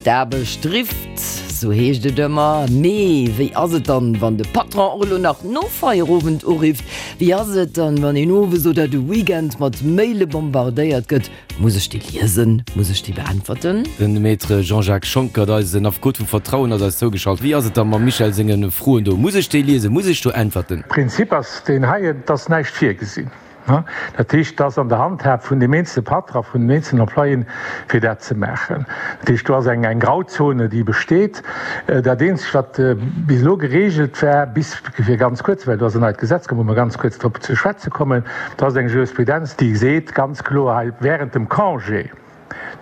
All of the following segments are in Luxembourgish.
D'Aarbecht rifft, sou heescht et ëmmer. Mee wéi ass et dann, wann de Patron och elo nach no Feierowend urifft? Wéi ass et dann, wann een owes oder de Weekend mat Maile bombardéiert gëtt? Muss ech déi liesen? Muss ech déi beäntwerten? Den Maître Jean-Jacques Schonckert, eisen Affekot vum Vertrauen, ass eis zougeschalt. Wéi ass et da mam Michel senge Froen do? Muss ech déi liesen? Muss ech do äntwerten? Prinzip ass deen heien, et ass näischt virgesinn. Dat heescht, et ass an der Handhab vun deem eenzele Patron, vun den eenzelen Employéen, fir dat ze maachen. Dat heescht, do ass eng Grauzone, déi besteet. Dat Eenzegt, wat bis elo geregelt war, bis fir ganz kuerz, well do ass en neit Gesetz komm, wou mer ganz kuerz drop ze schwätze kommen, do ass eng Jurisprudenz, déi seet ganz kloer hei, Während dem Congé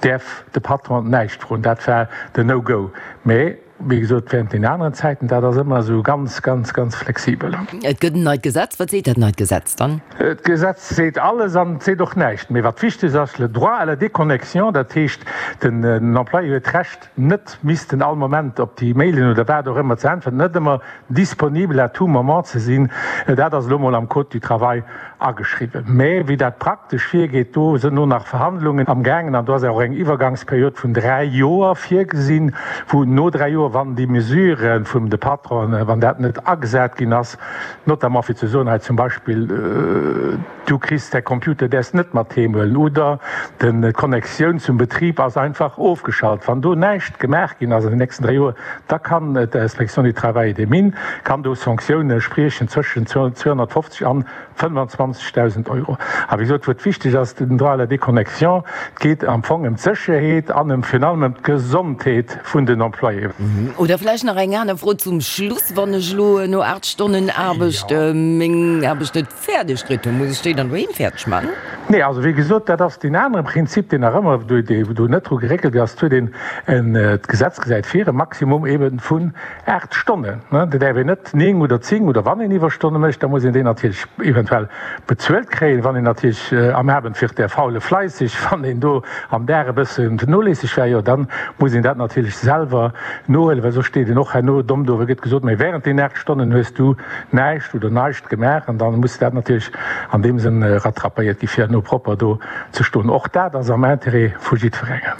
däerf de Patron näischt froen. Dat war den No-Go. Mä Wéi gesot, während den aneren Zäiten, dat ass ëmmer esou ganz, ganz, ganz flexibel. Et gëtt en neit Gesetz. Wat seet dat neit Gesetz dann? D'Gesetz seet alles an et seet och näischt. Mee wat wichteg ass, le droit à la déconnexion, dat heescht, den Employé huet d'Recht, net missten all Moment op déi Mailen oder wat och ëmmer ze äntwerten, net ëmmer disponibel à tout moment ze sinn. Dat ass elo mol am Code du travail ageschriwwen. Mä wéi dat praktesch virgeet, do sënn o nach Verhandlungen am gaangen an do ass och eng Iwwergangsperiod vun 3 Joer virgesinn, wou no 3 Joer, wann déi Mesure vum de Patronen, wann dat net agesat ginn ass, notamment fir ze soen, hei zum Beispill, du kriss däi Computer, däerfs net mat heem huelen oder den d'Connectioun zum Betrib ass einfach ofgeschalt, wann do näischt gemaach ginn ass an den nächsten 3 Joer, da kann d'Inspection du Travail et des Mines kann do Sanktioune spriechen zwëschen 250 an 25.000 Euro. A wéi gesot, wou et wichteg ass, den Droit à la déconnexion, et geet am Fong ëm d'Sécherheet an ëm virun allem ëm d'Gesondheet vun den Employéen. Oder vläicht nach eng aner Fro zum Schluss, Wann ech elo no 8 Stonnen Aarbecht meng Aarbecht net fäerdeg kritt hunn, muss ech déi dann doheem fäerdeg maachen? Nee, also wéi gesot, dat ass deen anere Prinzip, deen nach ëmmer, wou do net dru geréckelt ass. Et huet een en, d'Gesetz gesäit vir, e Maximum eebe vun 8 Stonnen, ne, dat däerf een net 9 oder 10 oder wann een Iwwerstonne mécht, da muss een déi natierlech eventuell bezuelt kréien. Wann een natierlech am Abend wird der Faule fleissig, wann een do am Dag e bëssen noléisseg war, jo dann muss een dat natierlech selwer nohuelen, well soss steet een och herno domm do, well gëtt gesot, mä während deenen 8 Stonnen hues du näischt oder neischt gemaach an dann muss dat natierlech an deem Sënn rattrapéiert gi fir herno propper do ze stoen. Och dat ass am Intérêt vu jiddwerengem.